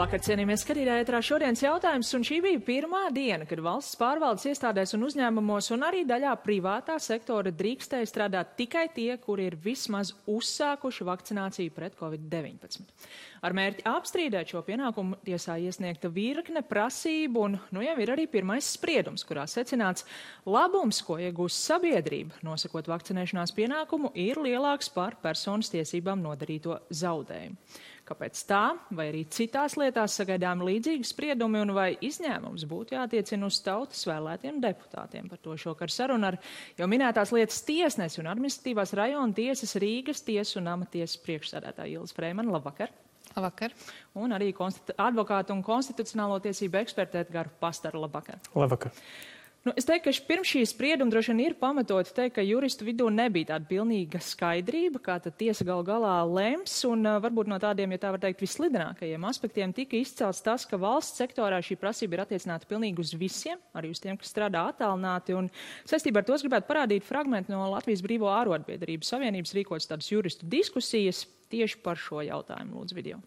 Labvakar, cienījamies skatītāji, ētrā šodienas jautājums, un šī bija pirmā diena, kad valsts pārvaldes iestādēs un uzņēmumos un arī daļā privātā sektora drīkstēja strādāt tikai tie, kuri ir vismaz uzsākuši vakcināciju pret Covid-19. Ar mērķi apstrīdēt šo pienākumu tiesā iesniegta virkne prasību, un jau ir arī pirmais spriedums, kurā secināts labums, ko iegūst sabiedrība, nosakot vakcinēšanās pienākumu, ir lielāks par personas tiesībām nodarīto zaudējumu. Kāpēc tā, vai arī citās lietās sagaidām līdzīgi spriedumi, un vai izņēmums būtu jātiecina uz tautas vēlētiem deputātiem? Par to šokar saruna ar jau minētās lietas tiesnesi un administratīvās rajona tiesas Rīgas tiesu un amatiesas priekšsēdētāja Ilze Freimana. Labvakar! Labvakar. Un arī advokātu un konstitucionālo tiesību eksperta Edgara Pastara. Labvakar! Labvakar! Es teiktu, ka pirms šī sprieduma droši vien ir pamatoti teikt, ka juristu vidū nebija tāda pilnīga skaidrība, kā tad tiesa gal galā lems, un varbūt no tādiem, ja tā var teikt, vislidinākajiem aspektiem tika izcelts tas, ka valsts sektorā šī prasība ir attiecināta pilnīgi uz visiem, arī uz tiem, kas strādā attālināti, un saistībā ar to es gribētu parādīt fragmentu no Latvijas Brīvo ārotbiedrību savienības rīkotas tādas juristu diskusijas tieši par šo jautājumu. Lūdzu, video.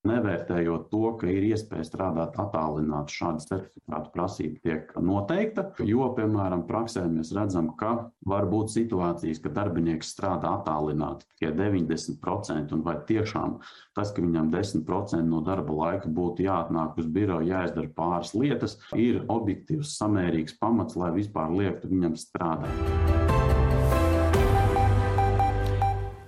Nevērtējot to, ka ir iespēja strādāt attālināti, šāda certifikāta prasība tiek noteikta, jo, piemēram, praksē mēs redzam, ka var būt situācijas, ka darbinieks strādā attālināti tikai 90%, un vai tiešām tas, ka viņam 10% no darba laika būtu jāatnāk uz biroju, jāizdara pāris lietas, ir objektīvs, samērīgs pamats, lai vispār liektu viņam strādāt.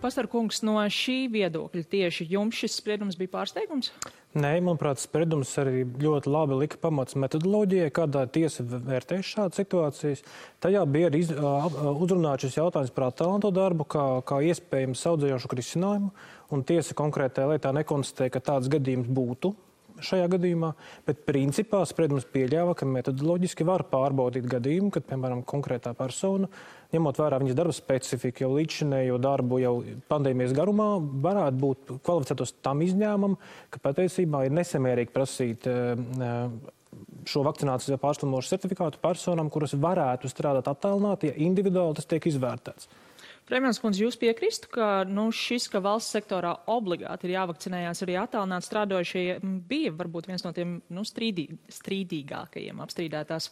Pastar kungs, no šī viedokļa tieši jums šis spriedums bija pārsteigums? Nē, manuprāt, spriedums arī ļoti labi lika pamats metodoloģijai, kādā tiesa vērtēs šādas situācijas. Tajā bija arī uzrunāts šis jautājums par attālināto darbu, kā iespējams saudzējošu risinājumu, un tiesa konkrētajā lietā nekonstatēja, ka tāds gadījums būtu šajā gadījumā, bet principā spriedums pieļāva, ka metodoloģiski var pārbaudīt gadījumu, kad, piemēram, konkrētā persona, ņemot vērā viņas darba specifiku, jau līdzšinējo darbu, jau pandēmijas garumā, varētu būt kvalificētos tam izņēmumam, ka patiesībā ir nesamērīgi prasīt šo vakcinācijas pārslimošu certifikātu personām, kuras varētu strādāt attālināti, ja individuāli tas tiek izvērtēts. Freimans kundze, jūs piekristu, ka šis, ka valsts sektorā obligāti ir jāvakcinējās arī attālināti strādājošie, bija varbūt viens no tiem strīdīgākajiem apstrīdētās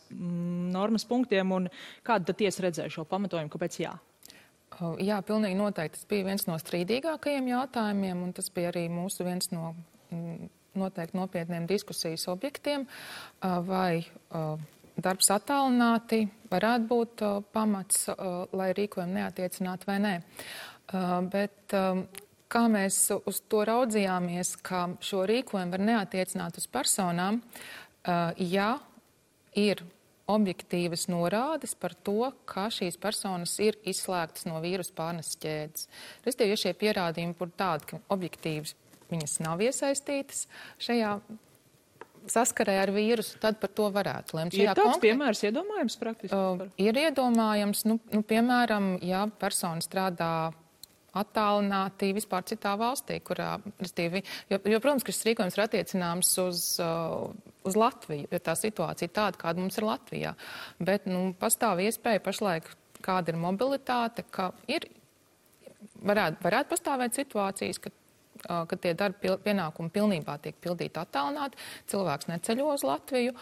normas punktiem, un kāda tad tiesa redzēja šo pamatojumu, kāpēc jā? Jā, pilnīgi noteikti. Tas bija viens no strīdīgākajiem jautājumiem, un tas bija arī mūsu viens no noteikti nopietniem diskusijas objektiem, vai darbs attālināti varētu būt pamats, lai rīkojumu neattiecinātu vai nē. Bet kā mēs uz to raudzījāmies, ka šo rīkojumu var neatiecināt uz personām, ja ir objektīvas norādes par to, ka šīs personas ir izslēgtas no vīrusu pārneses ķēdes. Respektīvi, ja šie pierādījumi būtu tādi, ka objektīvas viņas nav iesaistītas šajā saskarē ar vīrusu, tad par to varētu lemt. Ir tāds piemērs iedomājams praktiski? Ir iedomājams, piemēram, ja persona strādā attālināti vispār citā valstī, kurā, protams, ka šis rīkojums ir attiecināms uz Latviju, jo tā situācija ir tāda, kāda mums ir Latvijā. Bet, pastāv iespēja pašlaik, kāda ir mobilitāte, ka varētu pastāvēt situācijas, kad tie darba pienākumi pilnībā tiek pildīti attālināti, cilvēks neceļo uz Latviju,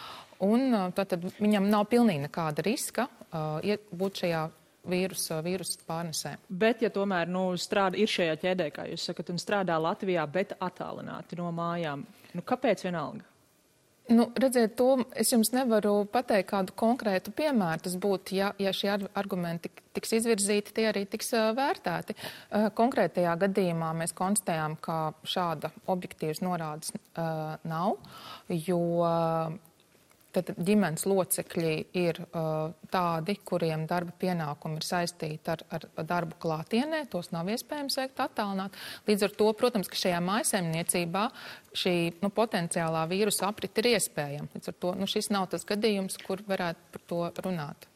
un tad viņam nav pilnīgi nekāda riska būt šajā vīrusu pārnesē. Bet, ja tomēr ir šajā ķēdē, kā jūs sakat, un strādā Latvijā, bet attālināti no mājām, kāpēc vienalga? Redziet, to es jums nevaru pateikt kādu konkrētu piemēru. Tas būtu, ja šie argumenti tiks izvirzīti, tie arī tiks vērtēti. Konkrētajā gadījumā mēs konstatējām, ka šāda objektīvas norādes nav, jo tad ģimenes locekļi ir tādi, kuriem darba pienākumi ir saistīti ar darbu klātienē, tos nav iespējams veikt attālināt. Līdz ar to, protams, ka šajā mājsaimniecībā šī potenciālā vīrusa aprite ir iespējama. Līdz ar to šis nav tas gadījums, kur varētu par to runāt.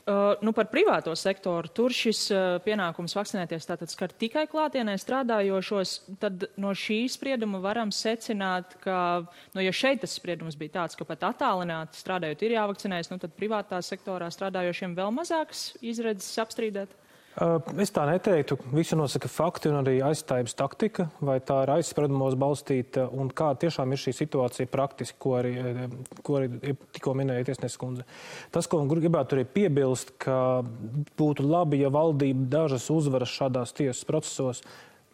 Par privāto sektoru, tur šis pienākums vakcinēties tātad skar tikai klātienē strādājošos, tad no šī sprieduma varam secināt, ka, ja šeit tas spriedums bija tāds, ka pat attālināti strādājot ir jāvakcinējas, tad privātā sektorā strādājošiem vēl mazākas izredzes apstrīdēt? Es tā neteiktu. Visu nosaka fakti un arī aizstājības taktika, vai tā ir aizspriedumos balstīta un kā tiešām ir šī situācija praktiski, ko arī tikko minēja tiesneses kundze. Tas, ko gribētu arī piebilst, ka būtu labi, ja valdība dažas uzvaras šādās tiesas procesos,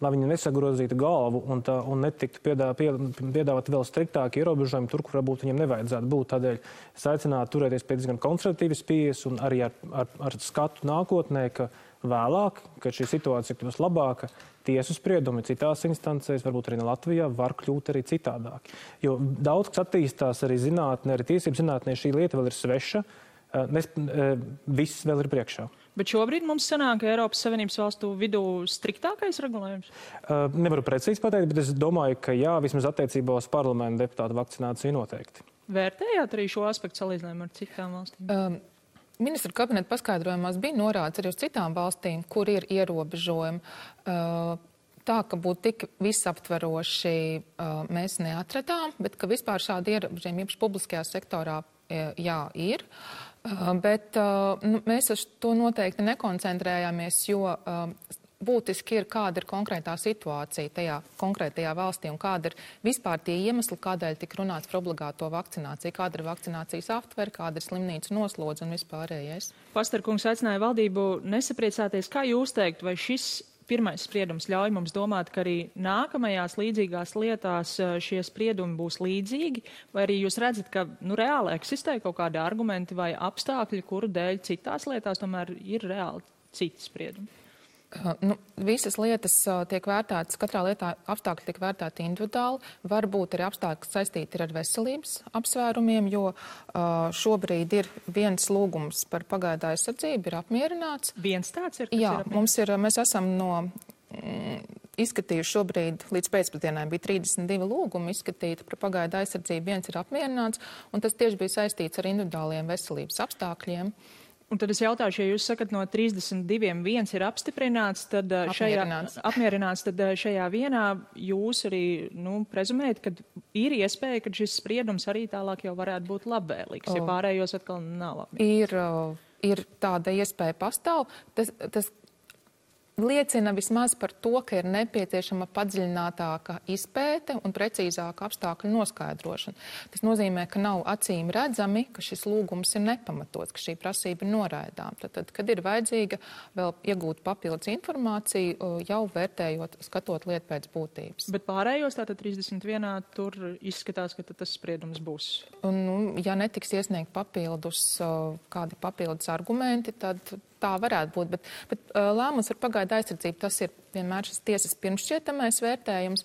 lai viņi nesagrozītu galvu un netiktu piedāvāt vēl striktāki ierobežojumi tur, kur varbūt viņiem nevajadzētu būt. Tādēļ es aicinātu turēties pie diezgan konservatīvas pieejas un arī ar skatu nākotnē, ka vēlāk, kad šī situācija kļūs labāka, tiesu spriedumi citās instancēs, varbūt arī Latvijā, var kļūt arī citādāk. Jo daudz, kas attīstās arī zinātnē, arī tiesību zinātnē, šī lieta vēl ir sveša, viss vēl ir priekšā. Bet šobrīd mums sanāk Eiropas Savienības valstu vidū striktākais regulējums? Nevaru precīzi pateikt, bet es domāju, ka jā, vismaz attiecībā uz parlamentu deputātu vakcināciju noteikti. Vērtējāt arī šo aspektu salīdzinājumu ar citām valstīm? Ministra kabineta paskaidrojumās bija norādes arī uz citām valstīm, kur ir ierobežojumi. Tā, ka būtu tik visaptveroši mēs neatradām, bet ka vispār šādi ierobežojumi īpaši publiskajā sektorā jā, ir. Bet mēs uz to noteikti nekoncentrējāmies, jo būtiski ir, kāda ir konkrētā situācija tajā konkrētajā valstī un kāda ir vispār tie iemesli, kādēļ tik runāts par obligāto vakcināciju, kāda ir vakcinācijas aptvere, kāda ir slimnīcu noslodze un vispārējais. Pastarkungs aicināja valdību nesapriecāties. Kā jūs teikt, vai šis pirmais spriedums ļauj mums domāt, ka arī nākamajās līdzīgās lietās šie spriedumi būs līdzīgi, vai arī jūs redzat, ka reāli eksistē kaut kādi argumenti vai apstākļi, kuru dēļ citās lietās tomēr ir reāli citi spriedumi? Visas lietas tiek vērtētas, katrā lietā apstākļi tiek vērtēti individuāli. Varbūt arī apstākļi, kas saistīti ar veselības apsvērumiem, jo šobrīd ir viens lūgums par pagaidu aizsardzību, ir apmierināts. Viens tāds ir? Jā, mēs esam izskatījuši šobrīd, līdz pēcpusdienai bija 32 lūgumi izskatīti par pagaidu aizsardzību, viens ir apmierināts, un tas tieši bija saistīts ar individuāliem veselības apstākļiem. Un tad es jautāšu, ja jūs sakat, no 32 viens ir apstiprināts, tad apmierināts, tad šajā vienā jūs arī prezumējat, ka ir iespēja, ka šis spriedums arī tālāk jau varētu būt labvēlīgs, ja pārējos atkal nav labvēlīgs. Ir tāda iespēja pastāv. Tas liecina vismaz par to, ka ir nepieciešama padziļinātāka izpēte un precīzāka apstākļu noskaidrošana. Tas nozīmē, ka nav acīm redzami, ka šis lūgums ir nepamatots, ka šī prasība ir noraidām. Tad, kad ir vajadzīga vēl iegūt papildus informāciju, jau vērtējot, skatot lietu pēc būtības. Bet pārējos tātad 31. tur izskatās, ka tas spriedums būs. Ja netiks iesniegt kādi papildus argumenti, tad tā varētu būt, bet lēmums par pagaidu aizsardzību, tas ir vienmēr šis tiesas pirmšķietamais vērtējums,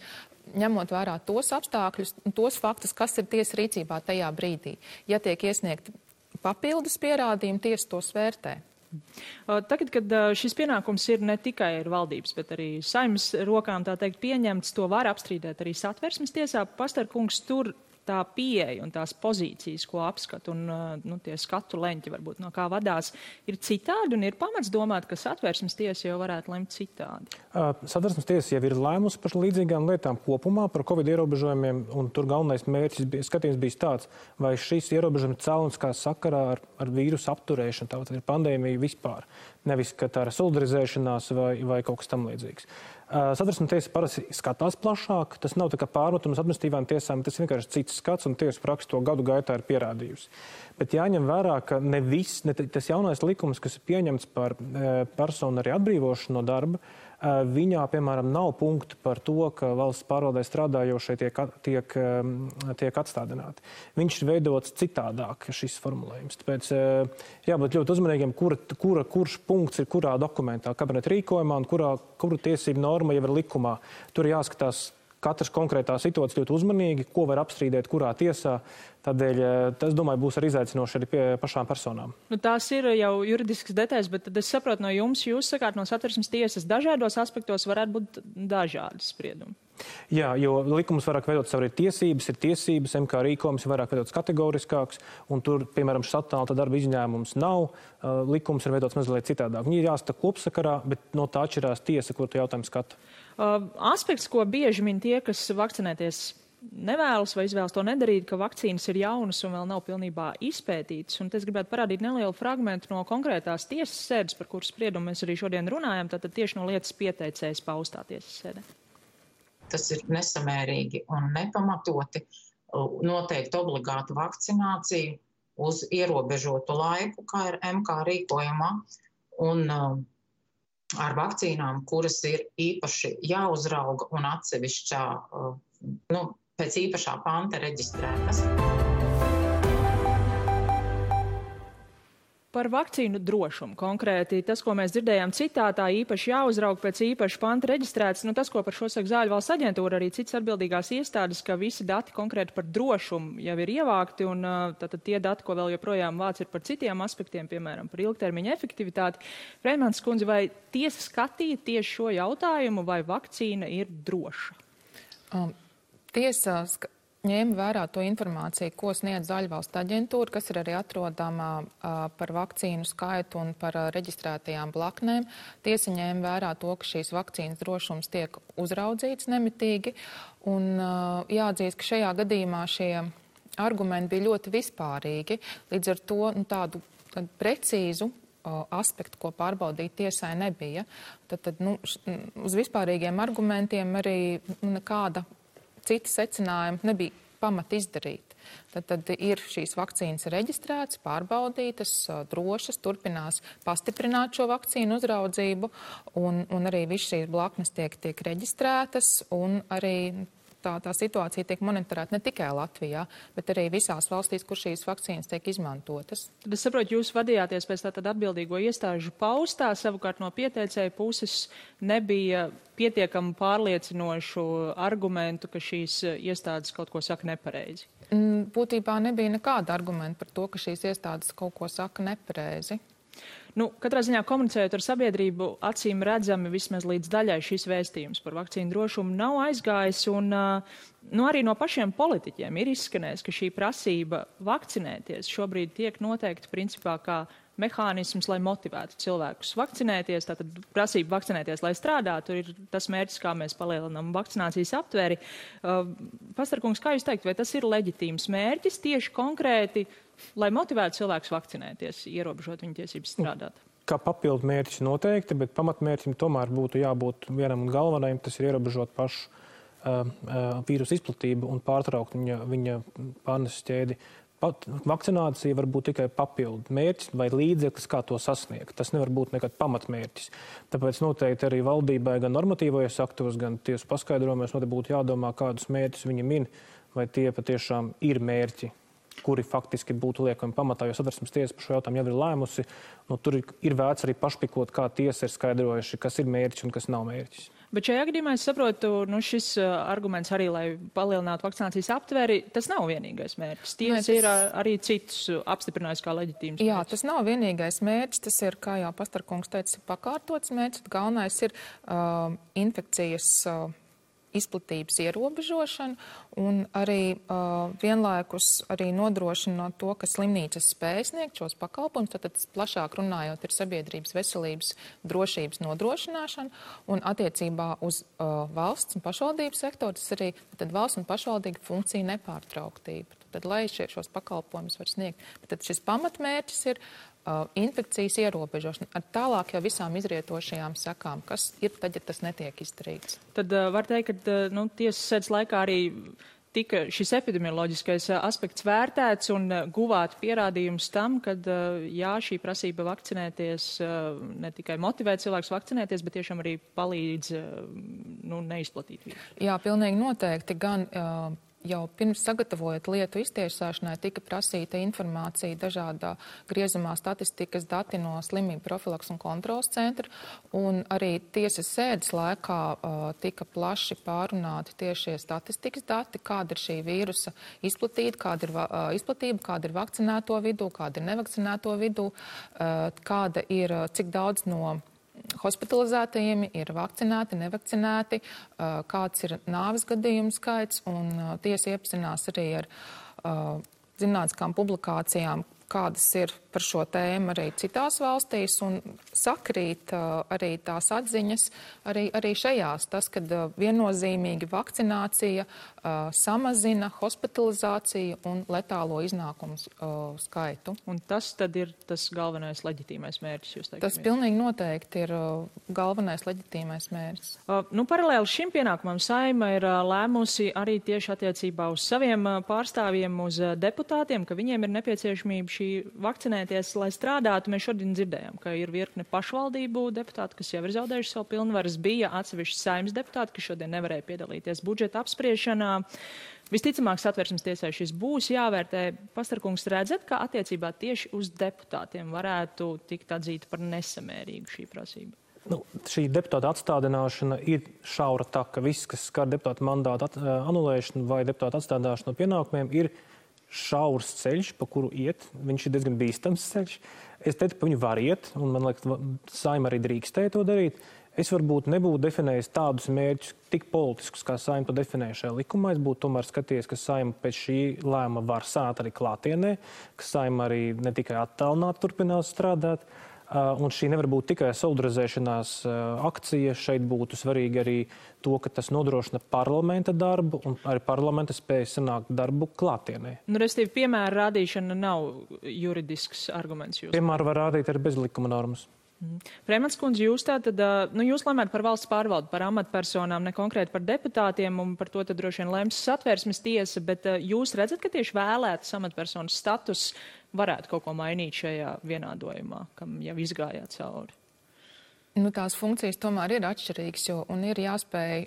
ņemot vērā tos apstākļus un tos faktus, kas ir tiesas rīcībā tajā brīdī. Ja tiek iesniegti papildus pierādījumi, tiesa tos vērtē. Tagad, kad šis pienākums ir ne tikai ar valdības, bet arī Saeimas rokām, tā teikt, pieņemts, to var apstrīdēt arī Satversmes tiesā. Pastarkungs, tur tā pieeja un tās pozīcijas, ko apskat un tie skatu leņķi varbūt no kā vadās, ir citādi un ir pamats domāt, ka Satversmes tiesa jau varētu lemt citādi. Satversmes tiesa jau ir lēmusi par līdzīgām lietām kopumā, par Covid ierobežojumiem, un tur galvenais mērķis skatījums bija tāds, vai šis ierobežojums cēloniskā sakarā ar vīrusu apturēšanu, tātad ir pandēmija vispār, nevis, ka tā ir solidarizēšanās vai kaut kas tam līdzīgs. Satversmes tiesa parasti skatās plašāk, tas nav tā kā pārmetums administratīvām tiesām, tas vienkārši cits skats un tiesa praksa to gadu gaitā ir pierādījusi. Bet jāņem vērā, ka ne tas jaunais likums, kas ir pieņemts par personu arī atbrīvošanu no darba, viņā, piemēram, nav punktu par to, ka valsts pārvaldē strādājošie tiek atstādināti. Viņš ir veidots citādāk, šis formulējums. Tāpēc jābūt ļoti uzmanīgiem, kurš punkts ir kurā dokumentā, kabineta rīkojumā un kura tiesība norma jau ir likumā. Tur jāskatās katras konkrētā situācija ļoti uzmanīgi, ko var apstrīdēt, kurā tiesā. Tādēļ, tas, domāju, būs arī izaicinoši arī pie pašām personām. Tās ir jau juridiskas detaļas, bet tad es saprotu no jums, jūs sakāt, no Satversmes tiesas dažādos aspektos varētu būt dažādi spriedumi. Jā, jo likums vairāk veidot savu tiesības, ir tiesības, MK rīkojums ir vairāk veidots kategoriskāks, un tur, piemēram, šis attālināta darba izņēmums nav, likums ir veidots mazliet citādāk. Viņi ir jāskata kopsakarā, bet no tā atšķirās tiesa, kur tu jautājumu skata. Aspekts, ko bieži min tie, kas vakcinēties nevēlas vai izvēlas to nedarīt, ka vakcīnas ir jaunas un vēl nav pilnībā izpētītas. Un es gribētu parādīt nelielu fragmentu no konkrētās tiesas sēdes, par kuras spriedumu mēs arī šodien runājam, tātad tieši no lietas pieteicējas paustā tiesas sēdē. Tas ir nesamērīgi un nepamatoti noteikt obligātu vakcināciju uz ierobežotu laiku, kā ir MK rīkojumā, un ar vakcīnām, kuras ir īpaši jāuzrauga un atsevišķā, pēc īpašā panta reģistrētas. Par vakcīnu drošumu konkrēti. Tas, ko mēs dzirdējām citātā, īpaši jāuzraug pēc īpaša panta reģistrēts. Tas, ko par šo saka Zāļu valsts aģentūra, arī citas atbildīgās iestādes, ka visi dati konkrēti par drošumu jau ir ievākti, un tātad tie dati, ko vēl joprojām vāc, ir par citiem aspektiem, piemēram, par ilgtermiņa efektivitāti. Freimans kundze, vai tiesa skatīja tieši šo jautājumu, vai vakcīna ir droša? Tiesa ņēma vērā to informāciju, ko sniedz Zāļu valsts aģentūra, kas ir arī atrodama par vakcīnu skaitu un par reģistrētajām blaknēm. Tiesa ņēma vērā to, ka šīs vakcīnas drošums tiek uzraudzīts nemitīgi. Un jāatzīst, ka šajā gadījumā šie argumenti bija ļoti vispārīgi. Līdz ar to tādu precīzu aspektu, ko pārbaudīt tiesai nebija. Tad uz vispārīgiem argumentiem arī nekāda citi secinājumi nebija pamata izdarīt. Tad ir šīs vakcīnas reģistrētas, pārbaudītas, drošas, turpinās pastiprināt šo vakcīnu uzraudzību, un arī viss šīs blaknes tiek reģistrētas, un arī tā situācija tiek monitorēta ne tikai Latvijā, bet arī visās valstīs, kur šīs vakcīnas tiek izmantotas. Tad es saprotu, jūs vadījāties pēc tātad atbildīgo iestāžu paustā, savukārt no pieteicēja puses nebija pietiekami pārliecinošu argumentu, ka šīs iestādes kaut ko saka nepareizi. Būtībā nebija nekāda argumenta par to, ka šīs iestādes kaut ko saka nepareizi. Katrā ziņā komunicējot ar sabiedrību, acīm redzami vismaz līdz daļai šis vēstījums par vakcīnu drošumu nav aizgājis, un arī no pašiem politiķiem ir izskanējis, ka šī prasība vakcinēties šobrīd tiek noteikta principā kā mehānisms, lai motivētu cilvēkus vakcinēties, tātad prasība vakcinēties, lai strādātu, ir tas mērķis, kā mēs palielinām vakcinācijas aptveri. Pastarkungs, kā jūs teikt, vai tas ir leģitīms mērķis tieši konkrēti, lai motivētu cilvēkus vakcinēties, ierobežot viņu tiesības strādāt? Kā papildu mērķis noteikti, bet pamatmērķim tomēr būtu jābūt vienam un galvenajam, tas ir ierobežot pašu vīrusu izplatību un pārtraukt viņa pārneses ķēdi. Vakcinācija var būt tikai papildu mērķis vai līdzeklis, kā to sasniegt. Tas nevar būt nekad pamatmērķis. Tāpēc noteikti arī valdībai gan normatīvajos aktos, gan tiesu paskaidrojumos noteikti būtu jādomā, kādus mērķus viņi min, vai tie patiešām ir mērķi, kuri faktiski būtu liekami pamatā, jo Satversmes tiesa par šo jautājumu jau ir lēmusi. Tur ir vērts arī pašpikot, kā tiesa ir skaidrojuši, kas ir mērķis un kas nav mērķis. Bet šajā gadījumā es saprotu, šis arguments arī, lai palielinātu vakcinācijas aptveri, tas nav vienīgais mērķis. Tiesa ir arī citus apstiprinājis kā leģitīms mērķis. Jā, tas nav vienīgais mērķis, tas ir, kā jau Pastarkungs teica, pakārtots mērķis. Galvenais ir infekcijas izplatības ierobežošana un arī vienlaikus arī nodrošinot to, ka slimnīcas spēj sniegt šos pakalpojumus, tad plašāk runājot ir sabiedrības veselības drošības nodrošināšana un attiecībā uz valsts un pašvaldības sektoru, tas arī tad valsts un pašvaldību funkcija nepārtrauktība. Tad, lai šos pakalpojumus var sniegt. Tad šis pamatmērķis ir infekcijas ierobežošana ar tālāk jau visām izrietošajām sekām, kas ir tad, ja tas netiek izdarīts. Tad var teikt, ka tiesas sēdes laikā arī tika šis epidemioloģiskais aspekts vērtēts un guvāt pierādījums tam, ka jā, šī prasība vakcinēties ne tikai motivē cilvēkus vakcinēties, bet tiešām arī palīdz neizplatīt vīrusu. Jā, pilnīgi noteikti. Gan jau pirms sagatavojot lietu iztiesāšanai tika prasīta informācija dažādā griezumā statistikas dati no slimību profilaks un kontrols centra, un arī tiesas sēdes laikā tika plaši pārunāti tieši statistikas dati, kāda ir šī vīrusa izplatība, kāda ir vakcinēto vidū, kāda ir nevakcinēto vidū, kāda ir, cik daudz no hospitalizētajiem ir vakcinēti, nevakcinēti, kāds ir nāves gadījumu skaits, un tiesa iepazinās arī ar zinātniskām publikācijām, kādas ir par šo tēmu arī citās valstīs un sakrīt arī tās atziņas arī šajās. Tas, kad viennozīmīgi vakcinācija samazina hospitalizāciju un letālo iznākumu skaitu. Un tas tad ir tas galvenais leģitīmais mērķis, jūs teikt? Tas pilnīgi noteikti ir galvenais leģitīmais mērķis. Paralēli šim pienākumam Saeima ir lēmusi arī tieši attiecībā uz saviem pārstāvjiem, uz deputātiem, ka viņiem ir nepieciešamība šī vakcinēties, lai strādātu. Mēs šodien dzirdējām, ka ir virkne pašvaldību deputāti, kas jau ir zaudējuši savu pilnvaras, bija atsevišķi Saeimas deputāti, kas šodien nevarēja piedalīties budžeta apspriešanā. Visticamāk, Satversmes tiesai šis būs jāvērtē. Pastarkungs, redzat, ka attiecībā tieši uz deputātiem varētu tikt atzīta par nesamērīgu šī prasība? Šī deputāta atstādināšana ir šaura taka. Viss, kas skar deputāta mandāta anulēšanu vai deputāta atstādināšanu no pienākumiem, ir šaurs ceļš, pa kuru iet. Viņš ir diezgan bīstams ceļš. Es teiktu, ka viņu var iet, un man liekas, Saeima arī drīkstēja to darīt. Es varbūt nebūtu definējis tādus mērķus tik politiskus, kā Saeima to definēja šajā likumā. Es būtu tomēr skatījies, ka Saeima pēc šī lēma var sāt arī klātienē, ka Saeima arī ne tikai attālināti turpinās strādāt. Un šī nevar būt tikai solidarizēšanās akcija. Šeit būtu svarīgi arī to, ka tas nodrošina parlamenta darbu un arī parlamenta spēja sanākt darbu klātienē. Restīvi, piemēra rādīšana nav juridisks arguments. Piemēru var rādīt arī bez likuma normas. Freimans kundze, jūs tātad, jūs lemjat par valsts pārvaldu, par amatpersonām, ne konkrēti par deputātiem, un par to tad droši vien lems Satversmes tiesa, bet jūs redzat, ka tieši vēlētas amatpersonas status varētu kaut ko mainīt šajā vienādojumā, kam jau izgājāt cauri? Tās funkcijas tomēr ir atšķirīgas, un ir jāspēj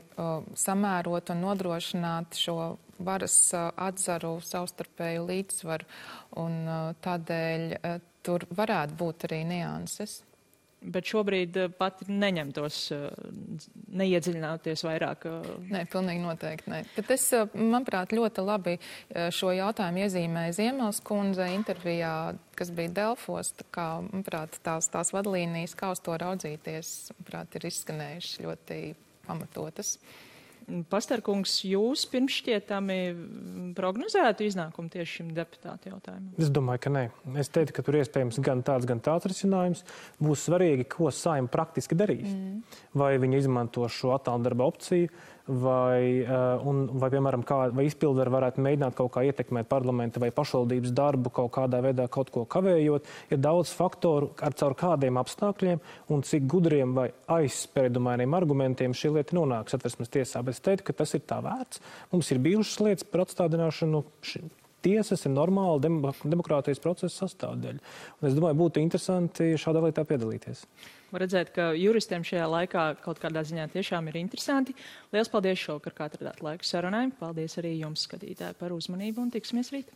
samērot un nodrošināt šo varas atzaru savstarpēju līdzsvaru, un tādēļ tur varētu būt arī nianses. Bet šobrīd pat neņemtos, neiedziļināties vairāk? Nē, pilnīgi noteikti nē. Bet es, manuprāt, ļoti labi šo jautājumu iezīmēju Ziemels kundze intervijā, kas bija Delfos. Tā kā, manuprāt, tās vadlīnijas, kā uz to raudzīties, manuprāt, ir izskanējušas ļoti pamatotas. Pastarkungs, jūs pirms šķietami prognozētu iznākumu tieši šim deputātu jautājumam? Es domāju, ka nē. Es teiktu, ka tur iespējams gan tāds risinājums. Būs svarīgi, ko Saeima praktiski darīs. Vai viņi izmanto šo attāldarba opciju, vai piemēram, vai izpildvaru varētu mēģināt kaut kā ietekmēt parlamenta vai pašvaldības darbu, kaut kādā veidā kaut ko kavējot. Ir daudz faktoru, caur kādiem apstākļiem un cik gudriem vai aizspriedumainiem argumentiem šī lieta nonāk Satversmes tiesā. Bet es teiktu, ka tas ir tā vērts. Mums ir bijušas lietas par atstādināšanu. Tiesas ir normāla demokrātijas procesa sastāvdaļa. Un es domāju, būtu interesanti šādā lietā piedalīties. Var redzēt, ka juristiem šajā laikā kaut kādā ziņā tiešām ir interesanti. Liels paldies šovakar, kā atradāt laiku sarunai. Paldies arī jums, skatītāji, par uzmanību un tiksimies rīt.